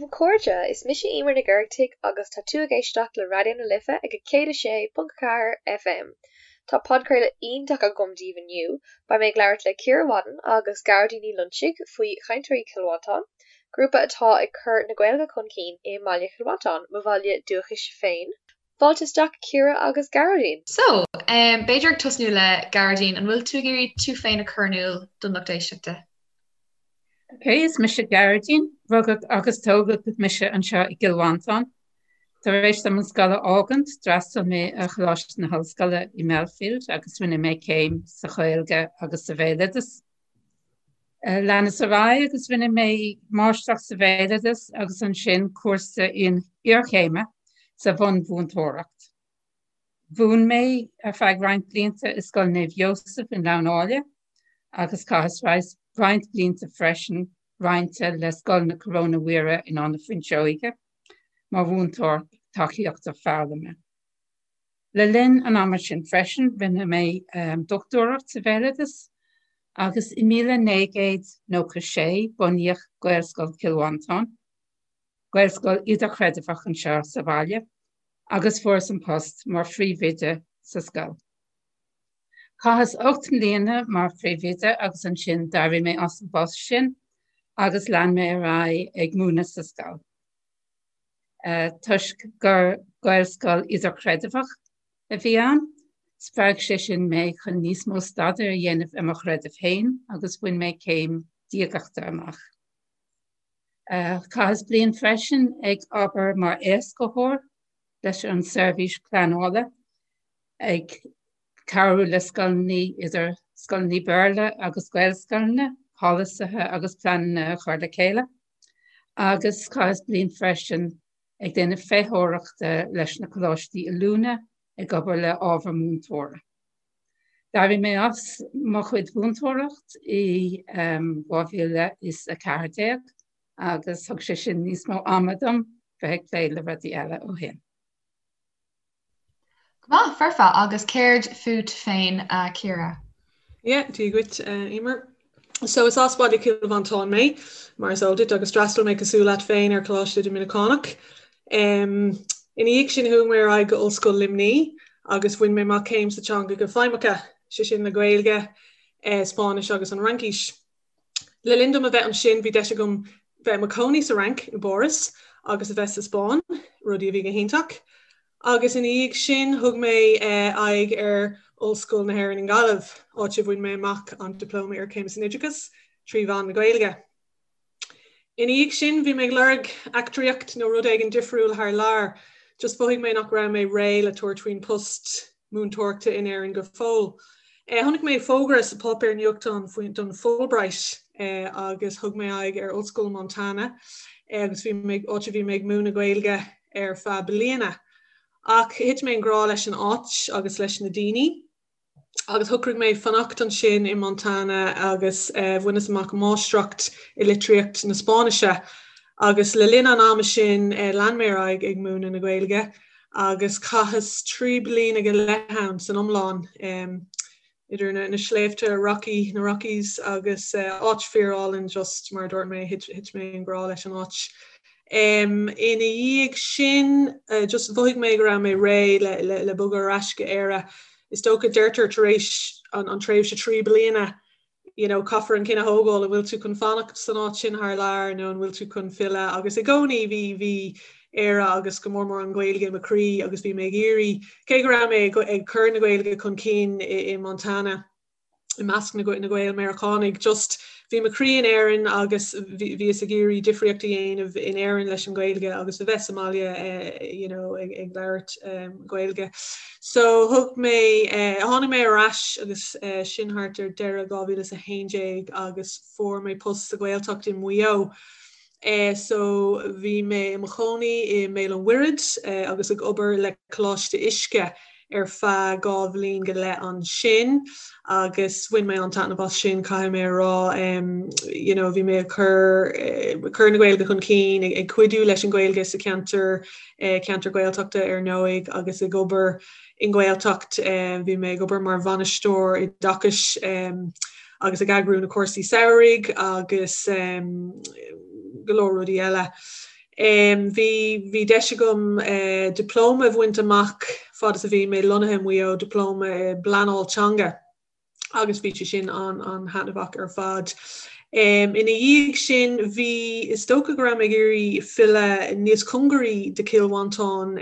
daoibh a chairde, is mise Emer Nic Oireachtaigh agus tá tú ag éisteacht le Raidió na Life ag 106.4 FM. Tá podchraoladh iontach agam daoibh inniu, beidh mé ag labhairt le Ciara Wadden agus Gearóidín Ní Loinsigh faoi Chainteoirí Chill Mhantáin, grúpa atá ag cur na Gaeilge chun cinn i mbaile Chill Mhantáin, mo bhaile dúchais féin. Fáilte isteach Ciara agus Gearóidín! So, b'fhéidir ag tosnú le Gearóidín, an bhfuil tú ag iarraidh tú féin a chur in iúl don lucht éisteachta? Ok, is mise Gearóidín, rugadh agus tógadh mise anseo i gCill Mhantáin. Tar éis dom an scoil a fhágaint, d'fhreastail mé ar Choláiste na hOllscoile i mBelfield agus rinne mé céim sa Ghaeilge agus sa Bhéaloideas. Leanas ar aghaidh agus rinne mé máistreacht sa Bhéaloideas agus ansin cúrsa iarchéime sa bhunmhúinteoireacht. Mhúin mé ar feadh roinnt blianta i Scoil Naomh Joseph i nGleann Áille agus chaitheas roinnt blianta freisin roinnte le Scoil na Coróine Mhuire in Áth na Fuinseoige mar mhúinteoir tacaíochta foghlama. Le linn an ama sin freisin, rinne mé dochtúireacht sa bhéaloideas agus i 1996 bunaíodh Gaelscoil Chill Mhantáin, Gaelscoil idirchreidmheach anseo sa bhaile, agus fuaireas an post mar phríomhoide sa scoil. Chaitheas 8 mbliana mar phríomhoide agus ansin d'éirigh mé as an bpost sin agus lean mé ar aghaidh ag múineadh sa scoil. Toisc gur Gaelscoil idirchreidmheach a bhí ann, spreag sé sin mé chun níos mó staidéir a dhéanamh ar mo chreideamh féin agus bhain mé céim diagachta amach. Chaitheas bliain freisin ag obair mar éascaitheoir leis an seirbhís pleanála, ag cabhrú le scoileanna, idir scoileanna Béarla agus Gaelscoileanna, polasaithe agus pleananna a chur le chéile. Agus chaitheas bliain freisin ag déanamh feitheoireachta leis na coláistí oiliúna ag obair le ábhar múinteora. D'éirigh mé as mo chuid mhúinteoireacht i 2014 agus thug sé sin níos mó ama dom bheith ag plé le rudaí eile ó shin. Go maith, foirfe. Agus céard fút féin, a Chiara? Yeah, Dia dhuit, Emer. So is as baile Chill Mhantáin mé, mar is eol duit, agus d'fhreastail mé cosúil leat féin ar Choláiste Doiminiceánach. Ina dhiaidh sin chuaigh mé ar aghaidh go Ollscoil Luimní agus bhain mé amach céim sa teangacha feidhmeacha, sé sin le Gaeilge, Spáinnis agus an Fhraincis. Le linn dom a bheith ansin bhí deis agam bheith i mo chónaí sa Fhrainc, i bPáras, agus a bheith sa Spáinn, rudaí a bhí go hiontach. Agus ina dhiaidh sin thug mé aghaidh ar Ollscoil na hÉireann i nGaillimh, áit a bhain mé amach an Dioplóma Iarchéime san Oideachas trí mheán na Gaeilge. Ina dhiaidh sin, bhí mé ag lorg eachtraíocht nó rud éigin difriúil thar lear. Just mhothaigh mé nach raibh mé réidh le tabhairt faoin post múinteoireachta in Éirinn go fóill. Chonaic mé fógra sa páipéar nuachtáin faoin don Fulbright agus thug mé aghaidh ar Ollscoil Montana agus bhí mé, áit a bhí mé ag múineadh Gaeilge ar feadh bliana. Ach thit mé i ngrá leis an áit agus leis na daoine. Agus shocraigh mé fanacht ansin i Montana agus bhaineas amach máistreacht i litríocht na Spáinnise. Agus le linn an ama sin lean mé ar aghaidh ag múineadh na Gaeilge agus chaitheas 3 bliana go leith ann san iomlán, idir na sléibhte Rocky, na Rockies agus áit fíorálainn just mar a dúirt mé, thit mé i ngrá leis an áit. Ina dhiaidh sin, just mhothaigh mé go raibh mé réidh le bogadh ar ais go Éire. Is dócha, deirtear tar éis an tréimhse 3 bliana, you know, caithfear an cinneadh a thógáil, an bhfuil tú chun fanacht san áit sin thar lear nó an bhfuil tú chun filleadh agus i gcónaí bhí, bhí Éire agus go mór mór an Ghaeilge i mo chroí agus bhí mé ag iarraidh, cé go raibh mé ag cur na Gaeilge chun cinn i Montana, i measc na Gael-Meiriceánaigh. Just bhí mo chroí in Éirinn agus bhíos ag iarraidh difríocht a dhéanamh in Éirinn leis an Ghaeilge agus a bheith sa mbaile you know ag ag labhairt Gaeilge. So thug mé tháinig mé ar ais agus sin thart ar deireadh 2011 agus fuair mé post sa Ghaeltacht i Maigh Eo. So bhí mé i mo chónaí i mBéal an Mhuirthead agus ag obair le Coláiste Uisce ar feadh 2 bhliain go leith ansin agus bhain mé an-taitneamh as sin, caithfidh mé a rá. You know, bhí mé ag cur, cur na Gaeilge chun cinn, ag cuidiú leis an Ghaeilge sa cheantar, ceantar Gaeltachta ar ndóigh agus ag obair i nGaeltacht. Bhí mé ag obair mar bhainisteoir oideachais agus ag eagrú na cúrsaí samhraidh agus go leor rudaí eile. Bhí bhí deis agam dioplóma a bhaint amach fad is a bhí mé lonnaithe i Maigh Eo, dioplóma i bpleanáil teanga. agus bhí sé sin an-thaitneamhach ar fad. Ina dhiaidh sin bhí, is dócha go raibh mé ag iarraidh filleadh níos cóngaraí do Chill Mhantáin,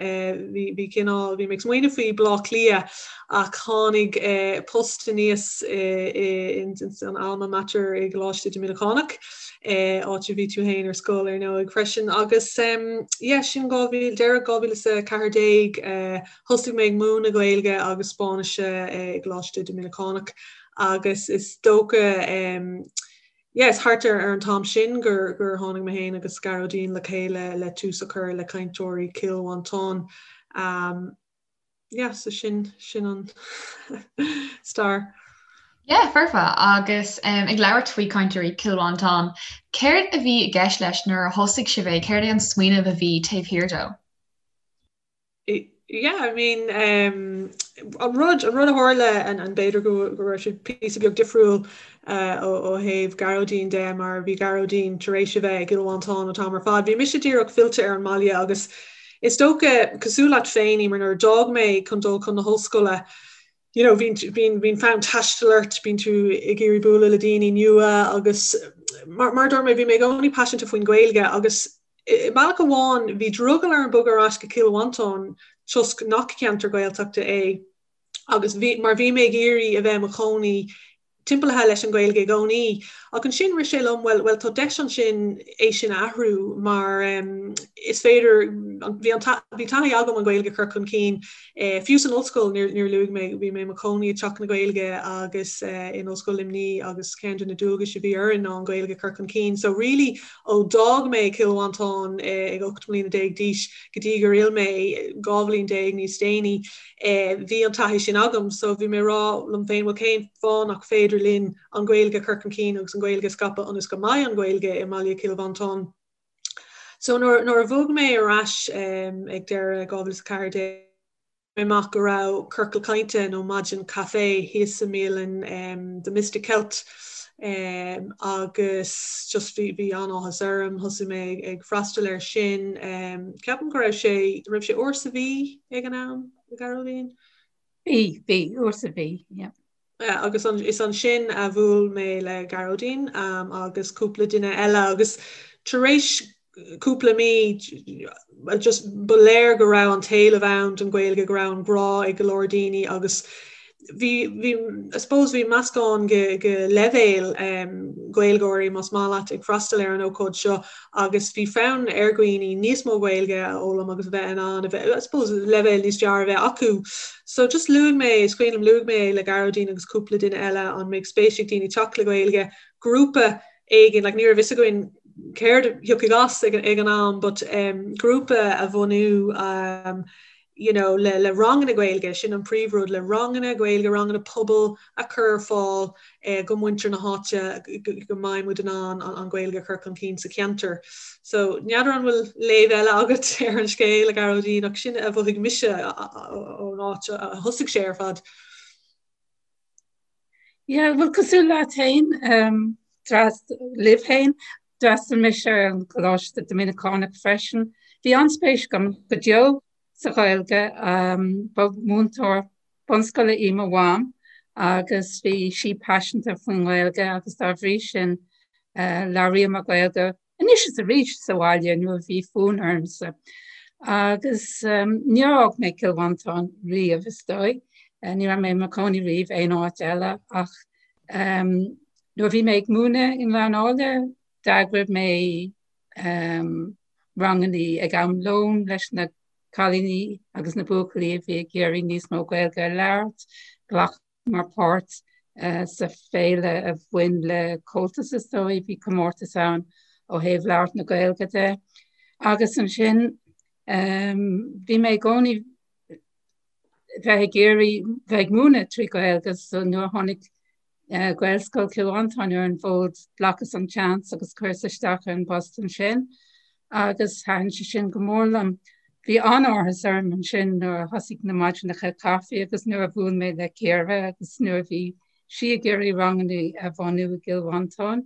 bhí, bhí cineál, bhí mé ag smaoineamh faoi Bleá Cliath ach tháinig post aníos in Alma Mater i gColáiste Doiminiceánach, áit a bhí tú féin ar scoil ar ndóigh freisin agus yeah sin 2000, deireadh 2014 Thosaigh mé ag múineadh Gaeilge agus Spáinnise i gColáiste Doiminiceánach agus is dócha yeah is thart ar an t-am sin gur gur tháinig mé féin agus Gearóidín le chéile le tús a chur le Cainteoirí Chill Mhantáin. Yeah so sin sin an stair. Yeah, foirfe. Agus ag labhairt faoi Cainteoirí Chill Mhantáin, céard a bhí i gceist leis nuair a thosaigh sibh é? Céard é an smaoineamh a bhí taobh thiar dó? Yeah, I mean, um, an rud, an rud a tharla an, an b'fhéidir go, go raibh sé píosa beag difriúil uh, ó, ó thaobh Gearóidín de mar bhí Gearóidín tar éis a bheith i gCill Mhantáin an t-am ar fad. Bhí mise díreach fillte ar an mbaile agus is dócha cosúil leat féin, Emer, nuair a d'fhág mé chun dul chun na hollscoile, you know, bíonn, bíonn, bíonn fonn taistil ort, bíonn tú ag iarraidh bualadh le daoine nua agus mar, mar a dúirt mé, bhí mé i gcónaí paiseanta faoin Ghaeilge agus I mbealach amháin, bhí drogall orm bogadh ar ais go Cill Mhantáin toisc nach ceantar Gaeltachta é agus bhí, mar bhí mé ag iarraidh a bheith i mo chónaí timpeallaithe leis an Ghaeilge i gcónaí. Ach ansin rith sé liom, bhuel, bhuel tá deis ansin é sin a athrú mar is féidir, bhí an, bhí taithí agam an Ghaeilge a chur chun cinn Fiú san ollscoil, níor luaigh mé, bhí mé i mo chónaí i dTeach na Gaeilge agus in Ollscoil Luimnigh agus ceann de na dualgais a bhí orainn ná an Ghaeilge a chur chun cinn. So really ó d'fhág mé Cill Mhantáin ag 18 mbliana d'aois go dtí gur fhill mé 12 bhliain níos déanaí, bhí an taithí sin agam. So bhí mé ag rá liom féin, bhuel cén fáth nach féidir linn an Ghaeilge a chur chun cinn agus an Ghaeilge a scaipeadh ionas go mbeidh an Ghaeilge i mbaile Chill Mhantáin. So nuair nuair a bhog mé ar ais ag deireadh 2014, mé amach go raibh ciorcal cainte nó maidin caife thíos sa mbialann The Mystic Celt agus just bhí bhí an-áthas orm, thosaigh mé ag freastal air sin. Ceapaim go raibh sé, raibh sé uair sa mhí ag an am, a Ghearóidín? Bhí, bhí, uair sa mhí, yeah. Agus is ansin a bhuail mé le Gearóidín agus cúpla duine eile agus tar éis cúpla mí just ba léir go raibh an t-éileamh ann don Ghaeilge, go raibh an grá ag go leor daoine agus bhí, bhí, I suppose bhí meascán de, de leibhéil Gaeilgeoirí más maith leat ag freastal ar an ócáid seo agus bhí fonn ar dhaoine níos mó Gaeilge a fhoghlaim agus a bheith in ann a bheith, I suppose, leibhéal níos fearr a bheith acu. So just luaigh mé, is cuimhin liom, luaigh mé é le Gearóidín agus cúpla duine eile an mbeadh spéis ag daoine teacht le Gaeilge, grúpa éigin, like ní raibh fhios againn céard a thiocfadh as ag, ag an am but um, grúpa a bhunú um, you know, le, le ranganna Gaeilge, sin an príomhrud, le ranganna Gaeilge, ranganna pobail a chur ar fáil eh, go muintir na háite go, go mbeidh muid in ann an, an Ghaeilge a chur chun cinn sa cheantar. So, n'fheadar an bhfuil léamh eile agat ar an scéal, a Ghearóidín, ach sin a mhothaigh mise ón áit a thosaigh sé ar fad. Yeah, well cosúil leat féin, um, libh féin, d'fhreastail mise ar an Choláiste Doiminiceánach freisin. Bhí an-spéis agam go deo sa Ghaeilge. Ba mhúinteoir bunscoile í mo mham agus bhí sí paiseanta faoin nGaeilge agus dá bhrí sin labhraíomar Gaeilge anois is arís sa bhaile nuair a bhí fonn ormsa. Agus níor fhág mé Cill Mhantáin riamh is dóigh. Ní raibh mé i mo chónaí riamh aon áit eile ach nuair a bhí mé ag múineadh i nGleann Áille d'eagraigh mé rangannaí ag am lóin leis na cailíní agus na buachaillí a bhí ag iarraidh níos mó Gaeilge a labhairt. Ghlacamar páirt sa féile a bhain le Comhaltas is dóigh, bhí comórtas ann ó thaobh labhairt na Gaeilge de. Agus ansin bhí mé i gcónaí bheith ag iarraidh bheith ag múineadh trí Ghaeilge so nuair a tháinig Gaelscoil Chill Mhantáin ar an bhfód, ghlacas an seans agus chuireas isteach ar an bpost ansin agus thaitin sé sin go mór liom. Bhí an-áthas orm ansin nuair a thosaigh na maidineacha caife agus nuair a bhuail mé le Ciara agus nuair a bhí sí ag iarraidh ranganna a bhunú i gCill Mhantáin.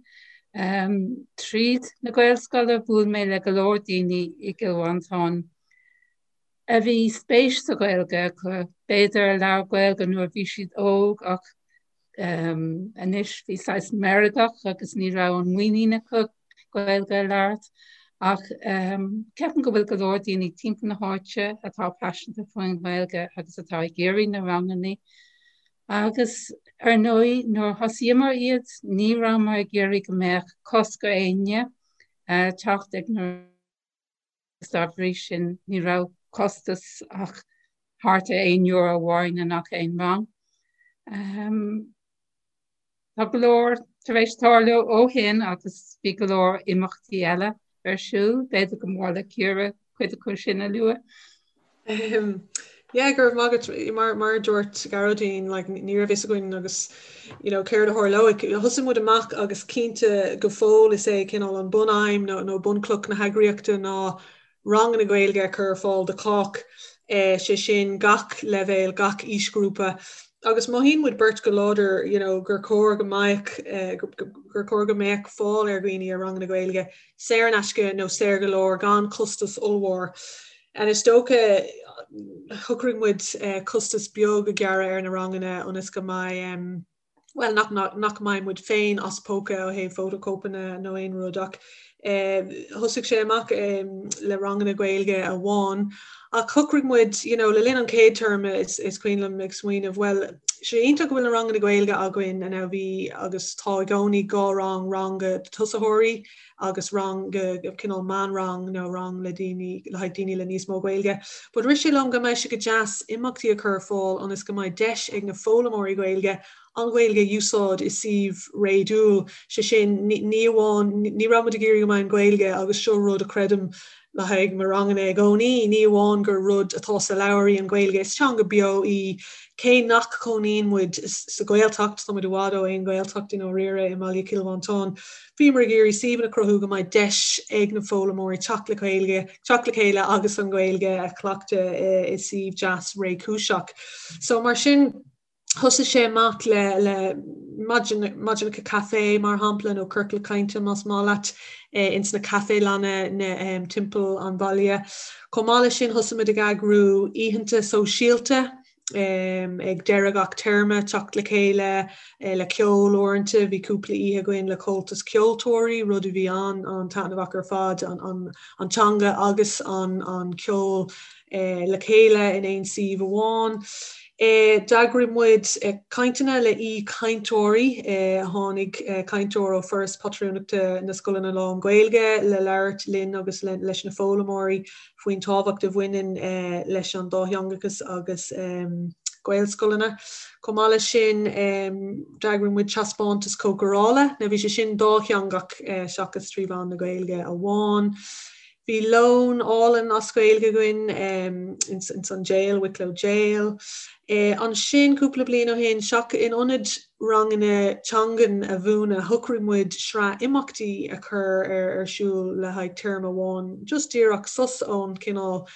Tríd na Gaelscoile bhuail mé le go leor daoine i gCill Mhantáin a bhí spéis sa Ghaeilge acu, b'fhéidir a labhair Gaeilge nuair a bhí siad óg ach anois bhí saghas meirgeach agus ní raibh an muinín acu Gaeilge a labhairt. Ach ceapaim go bhfuil go leor daoine timpeall na háite atá paiseanta faoin Ghaeilge agus atá ag iarraidh na ranganna. Agus ar ndóigh nuair a thosaíomar iad ní rabhamar ag iarraidh go mbeadh cosc ar éinne teacht ag na agus dá bhrí sin ní raibh costas ach thart ar €1 amháin i ngach aon rang. Tá go leor tar éis tarlú ó shin agus bhí go leor imeachtaí eile ar siúl, b'fhéidir go mba mhaith le Ciara cuid acu sin a lua. Yeah, go raibh maith agat. Mar mar a dúirt Gearóidín, like, ní raibh fhios againn agus you know, céard a tharlóidh. Thosaigh muid amach agus cinnte go fóill is é cineál an bunaidhm nó, nó bunchloch na heagraíochta ná ranganna Gaeilge a chur ar fáil do chách, eh, sé sin gach leibhéal, gach aoisghrúpa. Agus mothaíonn muid beirt go láidir you know, gur chóir go mbeadh, eh, gur chóir go mbeadh fáil ar dhaoine ar ranganna Gaeilge saor in aisce nó saor go leor gan costas ollmhór. And is dócha shocraigh muid costas beag a ghearradh ar na ranganna ionas go mbeidh, bhuel, nach, nach mbeidh muid féin as póca ó thaobh fótachóipeanna nó aon rud ach thosaigh sé amach le ranganna Gaeilge amháin ach shocraigh muid, you know, le linn an chéad téarma is, is cuimhin liom ag smaoineamh, bhuel, sé iontach go bhfuil na ranganna Gaeilge againn and bhí agus tá i gcónaí 2 rang, rang do tosaitheoirí agus rang go cineál meánrang nó rang le daoine le haghaidh daoine le níos mó Gaeilge. But rith sé liom go mbeadh sé go deas imeachtaí a chur ar fáil ionas go mbeidh deis ag na foghlaimeoirí Gaeilge an Ghaeilge a úsáid i suíomh réadúil, sé sin ní amháin ní raibh muid ag iarraidh go mbeadh an Ghaeilge agus seo rud a chreidim le haghaidh mo ranganna i gcónaí, ní amháin gur rud atá sa leabhar í an Ghaeilge, is teanga beo í. Cé nach cónaíonn muid sa Ghaeltacht, tá muid i bhfad ó aon Ghaeltacht i ndáiríre i mbaile Chill Mhantáin, bhíomar ag iarraidh suíomhanna a chruthú go mbeidh deis ag na foghlaimeoirí teacht le Gaeilge, teacht le chéile agus an Ghaeilge a chleachtadh i suíomh deas réchúiseach. So mar sin, Thosaigh sé amach le le maidineacha caife mar shampla nó ciorcal cainte más maith leat ins na caifélanna na timpeall an bhaile. Chomh maith leis sin thosaigh muid ag eagrú oícheanta sóisialta ag deireadh gach téarma, teacht le chéile le ceol uaireanta, bhí cúpla oíche againn le Comhaltas Ceoltóirí, rud a bhí an-taitneamhach ar fad, an teanga agus an ceol le chéile in aon suíomh amháin. D'eagraigh muid cainteanna le aoi-chainteoirí. Tháinig cainteoir ó Foras Pátrúnachta na Scoileanna Lán-Ghaeilge le labhairt linn agus leis na foghlaimeoirí faoin tábhacht a bhaineann leis an dátheangachas agus Gaelscoileanna. Chomh maith leis sin, d'eagraigh muid taispeántas cócarála. Now bhí sé sin dátheangach seachas trí mheán na Gaeilge amháin. Bhí lón álainn as Gaeilge againn ins an jail, Wicklow Jail. Ansin, cúpla bliain ó shin, seach in ionad ranganna teangan a mhúineadh, shocraigh muid sraith imeachtaí a chur ar siúl le haghaidh téarma amháin, just díreach sos ón cineál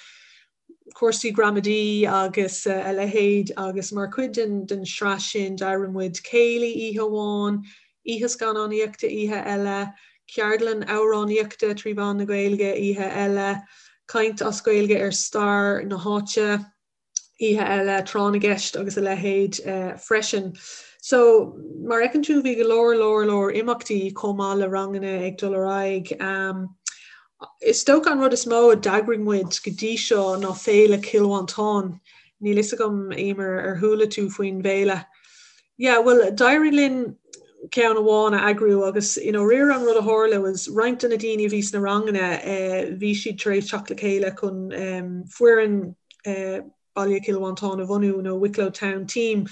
cúrsaí gramadaí agus a leithéid agus mar chuid den sraith sin d'eagraigh muid céilí oíche amháin, oíche scannánaíochta oíche eile, ceardlann amhránaíochta trí mheán na Gaeilge oíche eile, caint as Gaeilge ar stair na háite oíche eile, tráth na gceist agus a leithéid freisin. So, mar a fheiceann tú bhí go leor leor leor imeachtaí chomh maith le ranganna ag dul ar aghaidh. Is dócha an rud is mó a d'eagraigh muid go dtí seo ná Féile Chill Mhantáin. Níl fhios agam, Emer, ar chuala tú faoin bhféile? Yeah, bhuel, d'éirigh linn ceann amháin a eagrú agus i ndáiríre an rud a tharla was roinnt de na daoine a bhí sna ranganna, bhí siad tar éis teacht le chéile chun foireann Baile Chill Mhantáin a bhunú, nó Wicklow Town Team,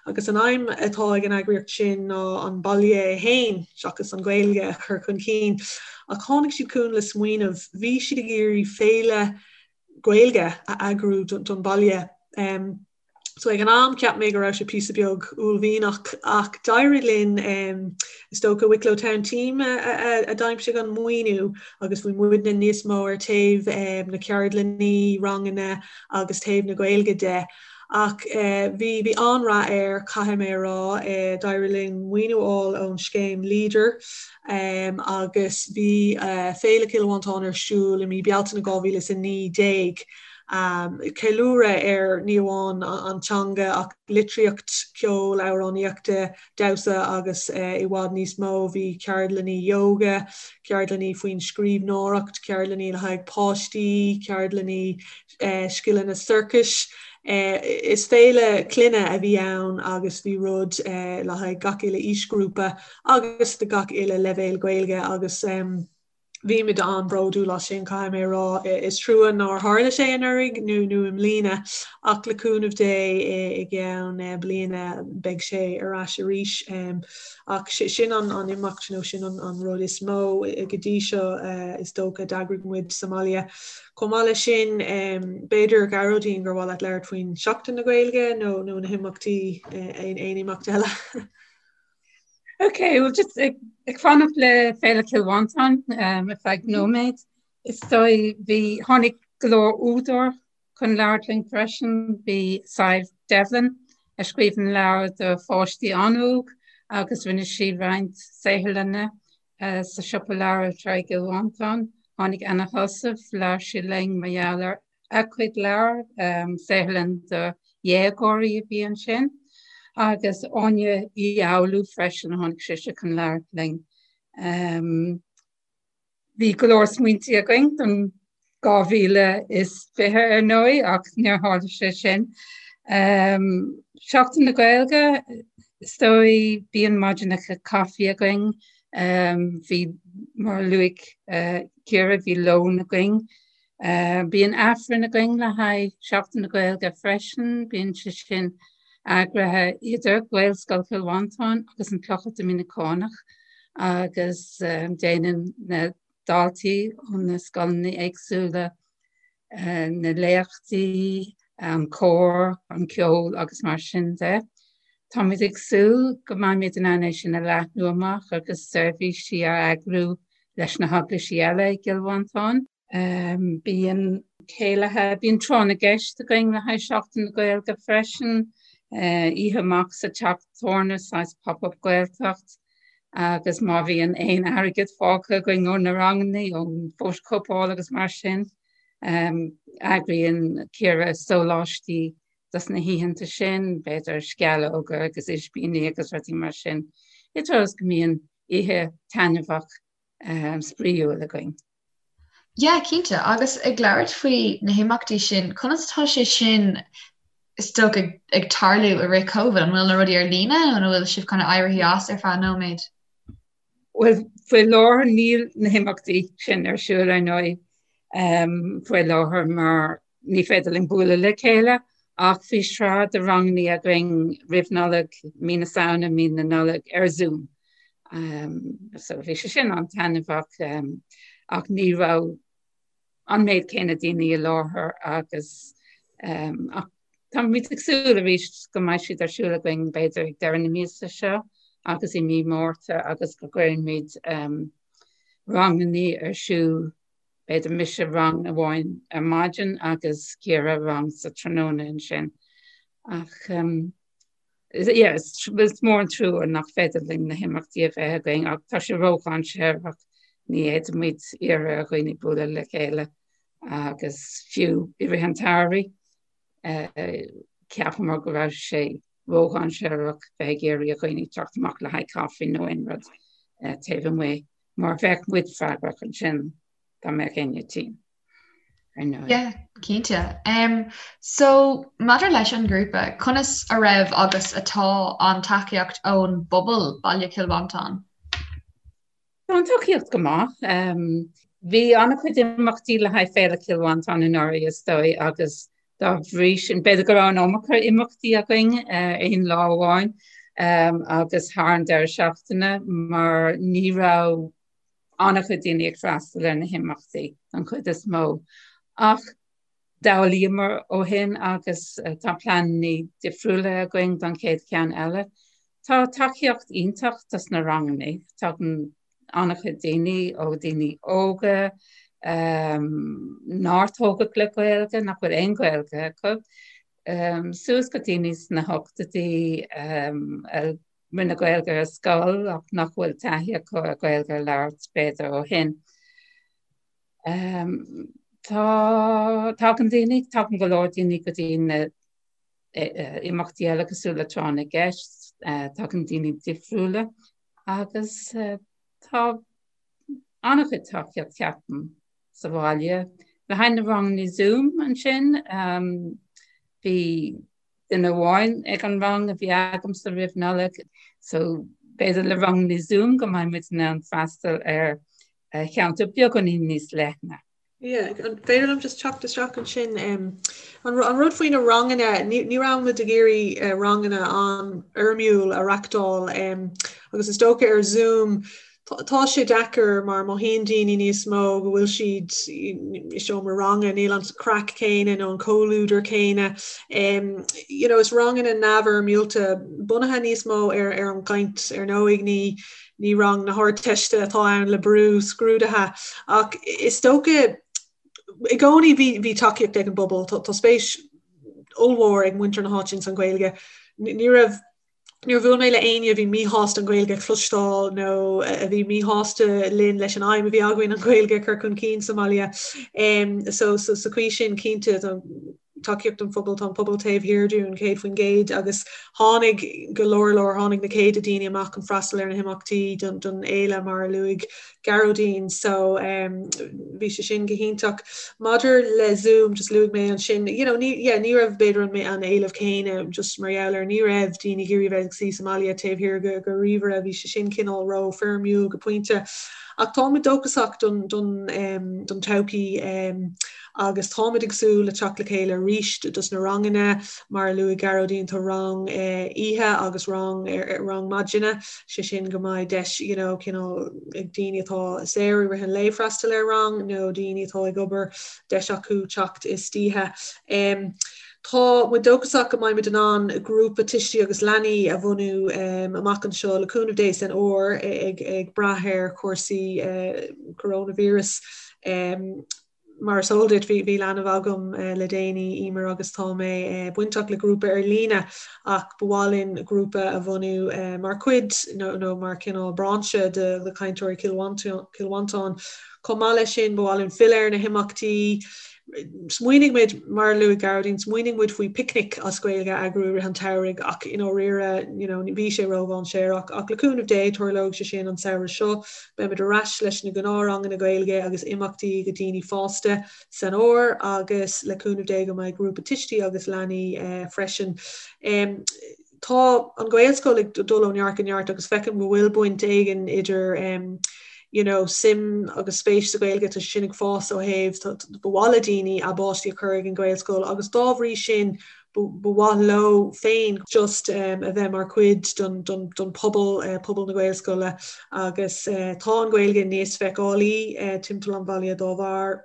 agus an aidhm atá ag an eagraíocht sin ná an baile é féin, seachas an Ghaeilge, a chur chun cinn. Ach tháinig siad chugainn le smaoineamh, bhí siad ag iarraidh féile Gaeilge a eagrú don bhaile. So ag an am cheap mé go raibh sé píosa beag uaillmhianach ach d'éirigh linn, is dócha Wicklow Town Team a d'aimsigh an maoiniú agus bhí muidne níos mó ar taobh na ceardlannaí, ranganna agus taobh na Gaeilge de. Ach bhí bhí an-rath air, caithfidh mé a rá. D'éirigh linn maoiniú a fháil ón scéim Leader agus bhí Féile Chill Mhantáin ar siúl i mí Bealtaine 2019. Ceiliúradh ar ní amháin an teanga ach litríocht, ceol, amhránaíochta, damhsa agus i bhfad níos mó. Bhí ceardlanna yoga, ceardlanna faoin scríbhneoireacht, ceardlanna le haghaidh páistí, ceardlanna scileanna sorcais. Is féile clainne a bhí ann agus bhí rud le haghaidh gach uile aoisghrúpa agus do gach uile leibhéal Gaeilge agus bhí muid an-bhródúil as sin, caithfidh mé a rá. Is trua nár tharla sé anuraidh nó nó i mbliana ach le cúnamh Dé i gceann bliana beidh sé ar ais arís. Ach sin an imeacht nó sin an rud is mó go dtí seo is dócha a d'eagraigh muid sa mbaile. Chomh maith leis sin, b'fhéidir, a Ghearóidín, gur mhaith leat labhairt faoin Seachtain na Gaeilge nó nó na himeachtaí, aon imeacht eile? Ok, well just ag, ag fanacht le Féile Chill Mhantáin um, ar feadh nóiméad. Is dóigh bhí tháinig go leor údar chun labhairt linn freisin, bhí Sadhbh Devlin a scríobhann leabhair do pháistí an-óg agus rinne sí roinnt saotharlanna Sa siopa leabhar anseo i gCill Mhantáin, tháinig Anna Heussaff, labhair sí linn mar gheall ar a cuid leabhar, saotharlann do dhéagóirí a bhí ansin, agus Áine Uí Fhoghlú freisin, tháinig sise chun labhairt linn. Bhí go leor smaointe againn don 2020 ar ndóigh, ach níor tharla sé sin. Seachtain na Gaeilge, is dóigh, bíonn maidineacha caife againn. Bhí, mar a luaigh Ciara, bhí lón againn. Bíonn Aifreann againn le haghaidh Seachtain na Gaeilge freisin. Bíonn sé sin eagraithe idir Gaelscoil Chill Mhantáin agus an Clochar Doiminiceánach agus déanann na daltaí ó na scoileanna éagsúla, na léachtaí, an cór, an ceol agus mar sin de. Táimid ag súil go mbeimid in ann é sin a leathnú amach agus seirbhísí a eagrú leis na heaglaisí eile i gCill Mhantáin. Bíonn céilithe, bíonn tráth na gceist againn le haghaidh Seachtain na Gaeilge freisin, oíche amach sa teach tábhairne, saghas pop-up Gaeltacht. Agus má bhíonn aon airgead fágtha againn ó na ranganna, ón bhfótachóipeáil agus mar sin, eagraíonn Ciara sóláistí dos na hoícheanta sin, b'fhéidir sceallóga agus ispíní agus rudaí mar sin, i dtreo is go mbíonn oíche taitneamhach spraíúil againn. Yeah, cinnte. Agus ag labhairt faoi na himeachtaí sin, conas atá sé sin is dócha ag tarlú i rith Covid? An bhfuil na rudaí ar líne nó an bhfuil sibh kind of éirithe as ar feadh nóiméid? Bhuel, faoi láthair níl na himeachtaí sin ar siúl ar ndóigh faoi láthair mar ní féidir linn bualadh le chéile ach bhí sraith de ranganna againn roimh Nollaig, mí na Samhna, mí na Nollag ar Zoom. So bhí sé sin an-taitneamhach ach ní raibh an méid céanna daoine i láthair agus ach táimid ag súil arís go mbeidh siad ar siúl againn b'fhéidir ag deireadh na míosa seo agus i mí Márta agus go gcuirfimid ranganna ar siúl B'fhéidir mise rang amháin ar maidin agus Ciara rang sa tráthnóna ansin. Ach yeah, is mór an trua nach féidir linn na himeachtaí a bheith againn ach tá sé ródhainséarach, ní fhéadfaimid iarraidh ar dhaoine bualadh le chéile agus fiú i rith an tsamhraidh cheapamar go raibh sé ródhainséarach bheith ag iarraidh ar dhaoine teacht amach le haghaidh caife nó aon rud taobh amuigh. Mar bheadh muid freagrach ansin dá mbeadh éinne tinn, ar ndóigh. Yeah, cinnte. Um, so, maidir leis an ngrúpa, conas a raibh agus atá an tacaíocht ón bpobal Baile Chill Mhantáin? Tá an tacaíocht go maith. Um, bhí an-chuid imeachtaí le haghaidh Féile Chill Mhantáin anuraidh is dóigh agus Dá bhrí sin, b'fhéidir go raibh an iomarca imeachtaí againn aon lá amháin agus thar an deireadh seachtaine mar ní raibh an-chuid daoine ag freastal ar na himeachtaí don chuid is mó. Ach d'fhoghlaíomar ó shin agus tá pleananna difriúla againn don chéad cheann eile. Tá tacaíocht iontach dos na ranganna. Tagann an-chuid daoine, ó daoine óga nár tógadh le Gaeilge, nach bhfuil aon Ghaeilge acu. Suas go daoine sna hochtóidí a rinne Gaeilge ar scoil ach nach bhfuil taithí acu ar Ghaeilge a labhairt b'fhéidir ó shin. Tá tagann daoine, tagann go leor daoine go dtí na imeachtaí eile cosúil le Tráth na gCeist, tagann daoine difriúla agus tá an-chuid tacaíocht ceapaim sa bhaile. Le haghaidh na ranganna Zoom ansin, bhí duine amháin ag an rang a bhí agamsa roimh Nollaig, so b'fhéidir le ranganna Zoom go mbeidh muid in ann freastal ar cheantar beagáinín níos leithne. Yeah, an féidir liom just teacht isteach ansin? An rud faoi na ranganna, ní raibh muid ag iarraidh ranganna an-fhoirmiúil a reachtáil agus is dócha ar Zoom Tá sé deacair mar mothaíonn daoine níos mó go bhfuil siad i seomra ranga, níl an craic céanna nó an comhluadar céanna. You know, is ranganna neamhfhoirmiúlta bunaithe níos mó ar ar an gcaint ar ndóigh, ní ní rang na hArdteiste atá ann le brú scrúdaithe ach is dócha i gcónaí bhí bhí tacaíocht ag an bpobal, tá spéis ollmhór ag muintir na háite ins an Ghaeilge. Ní raibh Níor bhuail mé le éinne a bhí míshásta an Ghaeilge a chloisteáil nó a bhí míshásta linn leis an aidhm a bhí againn an Ghaeilge a chur chun cinn sa mbaile. So sa chaoi sin cinnte tá tacaíocht an phobail, tá an pobal taobh thiar dúinn 100% agus tháinig go leor leor, tháinig na céadta daoine amach chun freastal ar na himeachtaí don fhéile mar a luaigh Gearóidín so bhí sé sin go hiontach. Maidir le Zoom just luaigh mé ansin you know ní yeah ní raibh b'fhéidir an an éileamh céanna just mar gheall ar ní raibh daoine ag iarraidh bheith ag suí sa mbaile taobh thiar de de ríomhaire bhí sé sin cineál ró foirmiúil go pointe. Ach táimid dóchasach don don don todhchaí agus táimid ag súil le teacht le chéile arís dos na ranganna mar a luaigh Gearóidín tá rang oíche agus rang rang maidine sé sin go mbeidh deis you know cineál ag daoine atá saor i rith an lae freastal ar rang nó daoine atá ag obair deis acu teacht istoíche. Um, Tá muid dóchasach go mbeidh muid in ann grúpa tuistí agus leanaí a bhunú um, amach anseo le cúnamh Dé san fhómhar ag, ag brath ar chúrsaí uh, coronavirus. Um, Mar is eol duit, bhí leanbh agam le déanaí, Emer, agus tá mé bainteach le grúpa ar líne ach ba mhaith linn grúpa a bhunú mar chuid nó mar chineál brainse de Cainteoirí Chill Mhantáin. Chomh maith leis sin, ba mhaith linn filleadh ar na himeachtaí. Smaoinigh muid, mar a luaigh Gearóidín, smaoinigh muid faoi picnic as Gaeilge a eagrú i rith an tsamhraidh ach i ndáiríre, you know, bhí sé ródhainséarach. Ach le cúnamh Dé, tarlóidh sé sin an samhradh seo. Beimid ar ais leis na gnáthranganna Gaeilge agus imeachtaí do dhaoine fásta san fhómhar agus le cúnamh Dé go mbeidh grúpa tuistí agus leanaí freisin. Tá an Ghaelscoil ag dul ó neart go neart agus feicim go bhfuil baint éigin idir you know, suim agus spéis sa Ghaeilge, tá sé sin ag fás ó thaobh ba mhaith le daoine a bpáistí a chur ag an Ghaelscoil agus dá bhrí sin ba mhaith leo féin just a bheith mar chuid don pobal, pobal na Gaelscoile agus tá an Ghaeilge níos feiceálaí timpeall an bhaile dá bharr.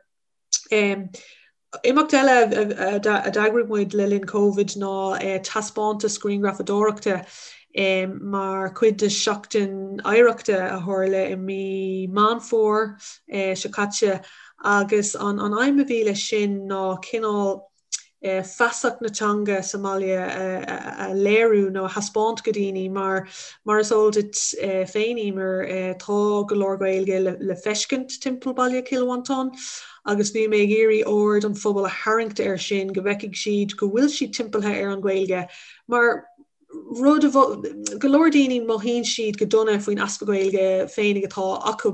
Imeacht eile a d'eagraigh muid le linn Covid ná taispeántas grianghrafadóireachta mar chuid de Sheachtain Oidhreachta a tharla i mí Meán Fómhair seo caite agus an aidhm a bhí leis sin ná cineál feasacht na teanga sa mbaile a léiriú nó a thaispeáint go daoine mar mar is eol duit féin Emer tá go leor Gaeilge le feiscint timpeall baile Chill Mhantáin agus bhí mé ag iarraidh aird an phobail a tharraingt air sin go bhfeicfidh siad go bhfuil siad timpeallaithe ar an Ghaeilge mar rud a go leor daoine mothaíonn siad go dona faoin easpa Gaeilge féinig atá acu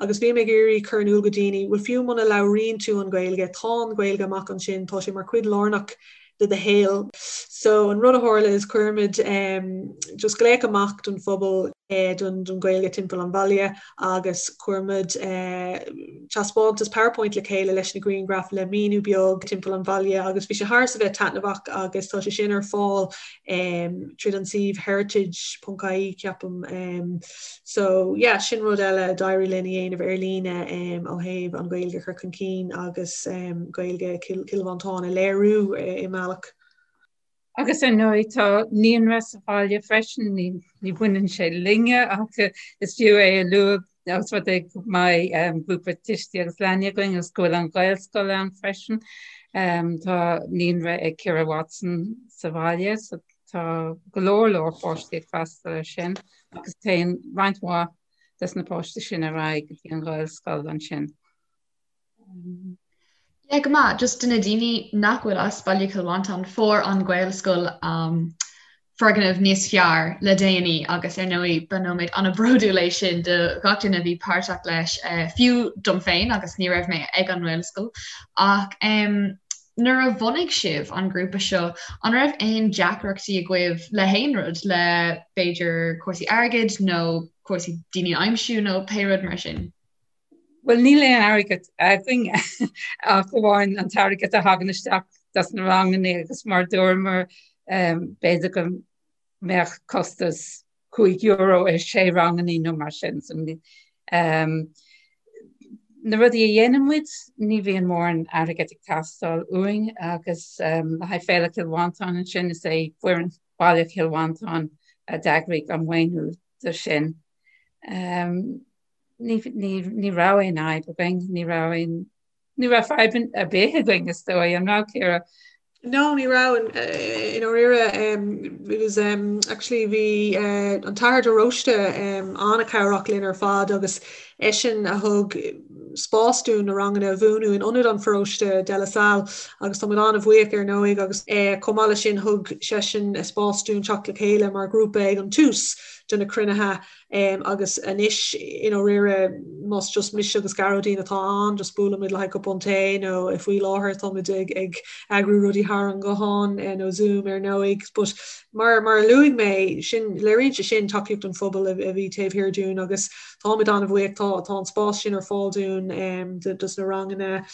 agus bhí mé ag iarraidh cur in iúl go daoine bhuel fiú muna labhraíonn tú an Ghaeilge tá an Ghaeilge amach ansin tá sé mar chuid lárnach de do shaol. So an rud a tharla is chuir muid um, just glaoch amach don phobal eh, don, don Ghaeilge timpeall an bhaile agus chuir muid eh, taispeántas PowerPoint le chéile leis na grianghraif le míniú beag timpeall an bhaile agus bhí sé thar a bheith taitneamhach agus tá sé sin ar fáil tríd an suíomh heritage.ie ceapaim. So yeah sin rud eile a d'éirigh linn a dhéanamh ar líne ó thaobh an Ghaeilge a chur chun cinn agus Gaeilge Chill Mhantáin a léiriú i mbealach. Agus ar ndóigh tá naíonra sa bhaile freisin, ní bhaineann sé linne ach is fiú é a lua Ós rud é go mbeidh grúpa tuistí agus leanaí againn agus go bhfuil an Ghaelscoil ann freisin. Tá naíonra ag Ciara Watson sa bhaile so tá go leor leor páistí ag freastal air sin agus téann roinnt mhaith des na páistí sin ar aghaidh go dtí an Ghaelscoil ansin. Yeah, go maith. Just do na daoine nach bhfuil as Baile Chill Mhantáin, fuair an Ghaelscoil um, foirgneamh níos fearr le déanaí agus ar ndóigh ba nóiméad an-bhródúil é sin do gach duine a bhí páirteach leis, eh, fiú dom féin agus ní raibh mé ag an nGaelscoil. Ach um, nuair a bhunaigh sibh an grúpa seo, an raibh aon deacrachtaí agaibh le haon rud, le b'fhéidir cúrsaí airgid nó cúrsaí daoine a aimsiú nó pé rud mar sin? Bhuel, níl aon airgead againn ach amháin an t-airgead a thagann isteach dos na ranganna agus mar dúramar b'fhéidir go mbeadh costas €5 ar sé ranganna nó mar sin. So, na rudaí a dhéanann muid, ní bhíonn mórán airgead ag teastáil uainn agus le haghaidh Féile Chill Mhantáin ansin is é foireann Bhaile Chill Mhantáin a d'eagraigh an maoiniú do sin. Ní raibh aon fhadhb againn, ní raibh aon, ní raibh fadhb ar bith againn is dóigh, an raibh Ciara? No, ní raibh i ndáiríre. It was actually bhí an tAthair de Róiste an-chabhrach linn ar fad agus eisean a thug spás dúinn na ranganna a bhunú in ionad an pharóiste De La Salle agus tá muid an-bhuíoch ar ndóigh agus chomh maith leis sin thug seisean spás dúinn teacht le chéile mar ghrúpa ag an tús de na cruinnithe Agus anois, i ndáiríre, más just mise agus Gearóidín atá ann, just buailimid le haghaidh cupán tae nó faoi láthair táimid ag ag eagrú rudaí thar an ghuthán nó Zoom ar ndóigh. But mar mar a luaigh mé, sin, léiríonn sé sin tacaíocht an phobail a bhí taobh thiar dúinn agus táimid an-bhuíoch, tá tá an spás sin ar fáil dúinn dos na ranganna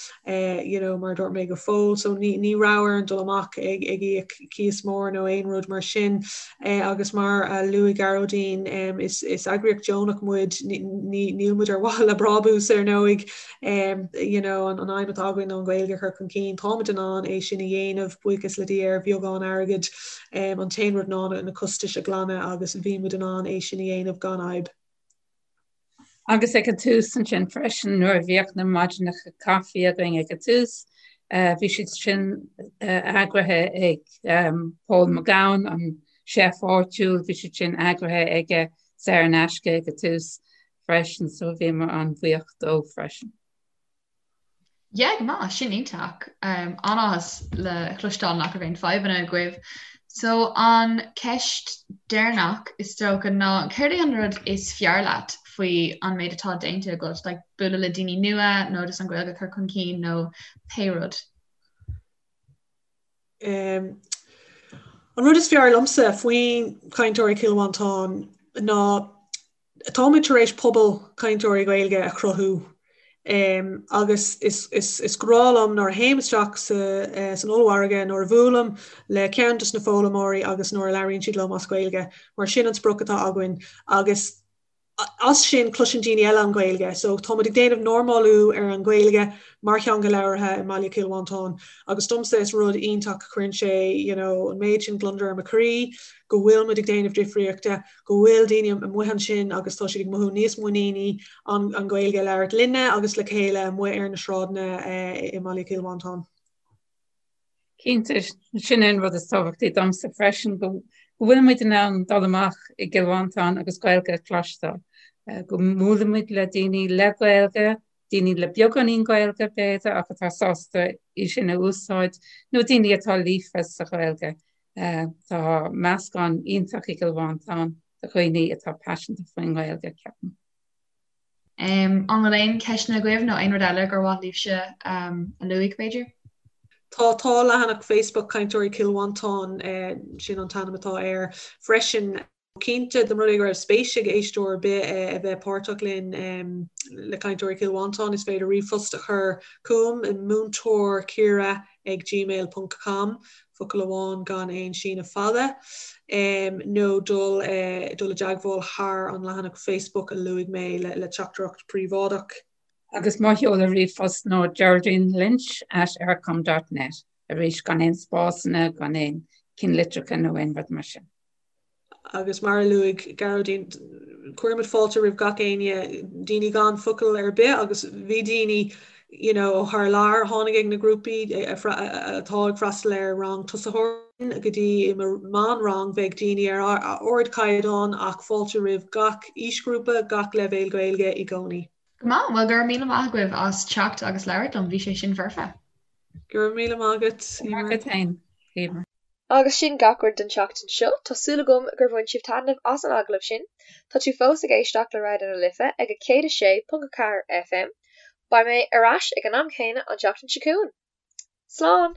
you know mar a dúirt mé go fóill. So ní ní raibh orainn dul amach ag ag íoc cíos mór nó aon rud mar sin. Agus mar a luaigh Gearóidín, is eagraíocht deonach muid, níl muid ar mhaithe le brabús ar ndóigh. You know, an aidhm atá againn ná an Ghaeilge a chur chun cinn. Táimid in ann é sin a dhéanamh, buíochas le Dia, ar bheagán airgid. An t-aon rud ná na costais a ghlanadh agus bhí muid in ann é sin a dhéanamh gan fhadhb. Agus ag an tús ansin freisin nuair a bhíodh na maidineacha caife againn ag an tús, bhí siad sin eagraithe ag Paul McGowan, an chef áitiúil, bhí siad sin eagraithe aige saor in aisce ag an tús freisin, so bhíomar an-bhuíoch dó freisin. Yeah, go maith, sin iontach. An-áthas le cloisteáil nach raibh aon fadhbanna agaibh. So an ceist deireanach is dócha ná céard é an rud is fearr leat faoi an méid atá déanta agat, like bualadh le daoine nua nó just an Ghaeilge a chur chun cinn nó pé rud? Um, an rud is fearr liomsa faoin Cainteoirí Chill Mhantáin ná Táimid tar éis pobal cainteoirí Gaeilge a chruthú agus is grá liom nuair a théim isteach san ollmhargadh, nuair a bhuailim le ceann de na foghlaimeoirí agus nuair a labhraíonn siad liom as Gaeilge, mar sin an sprioc atá againn agus as sin cloiseann daoine eile an Ghaeilge. So táimid ag déanamh normálú ar an Ghaeilge mar theanga labhartha i mbaile Chill Mhantáin agus domsa is rud iontach, cuireann sé you know an méid sin gliondar ar mo chroí go bhfuil muid ag déanamh difríochta. go bhfuil daoine amuigh ansin agus tá siad ag mothú níos muiníní an Ghaeilge a labhairt linne agus le chéile amuigh ar na sráideanna i mbaile Chill Mhantáin. Cinnte, sin é an rud is tábhachtaí domsa freisin, go bhfuil muid in ann dul amach i gCill Mhantáin agus Gaeilge a chloisteáil, go mbuaileann muid le daoine le Gaeilge, daoine le beagáinín Gaeilge b'fhéidir ach atá sásta í sin a úsáid, nó daoine atá líofa sa Ghaeilge. Tá meascán iontach i gCill Mhantáin de dhaoine atá paiseanta faoin nGaeilge, ceapaim. An bhfuil aon cheisteanna agaibh nó aon rud eile gur mhaith libhse a luaigh, b'fhéidir? Tá, tá leathanach Facebook Cainteoirí Chill Mhantáin, sin an t-ainm atá air freisin. Cinnte, dá mba rud é go raibh spéis ag éisteoir ar bith a bheith páirteach linn le Cainteoirí Chill Mhantáin, is féidir ríomhphost a chur chugam i múinteoirciara ag gmail ponc com, focal amháin gan aon síneadh fada, nó dul dul i dteagmháil thar an leathanach Facebook a luaigh mé le teachtaireacht príobháideach. Agus mo sheoladh ríomhphost ná Geraldine Lynch at eircom dot net, arís gan aon spásanna, gan aon cinnlitreacha nó aon rud mar sin. Agus mar a luaigh Gearóidín, cuirimid fáilte roimh gach éinne, daoine gan focal ar bith agus bhí daoine you know, ó thar lear a tháinig ag na grúpaí atá ag freastal ar rang tosaitheoirí go dtí i mo mheánrang bheadh daoine ar ardchaighdeán ach fáilte roimh gach aoisghrúpa, gach leibhéal Gaeilge i gcónaí. Go maith, bhuel go raibh míle maith agaibh as teacht agus labhairt liom, bhí sé sin foirfe. Go raibh míle maith agat, Eimear. Maith agat féin, Eimear. Agus sin gach rud don tseachtain seo. Tá súil agam gur bhain sibh taitneamh as an agallamh sin. Tá tú fós ag éisteacht le Raidió na Life ag 106.4 FM. Beidh mé ar ais ag an am céanna an tseachtain seo chugainn. Slán!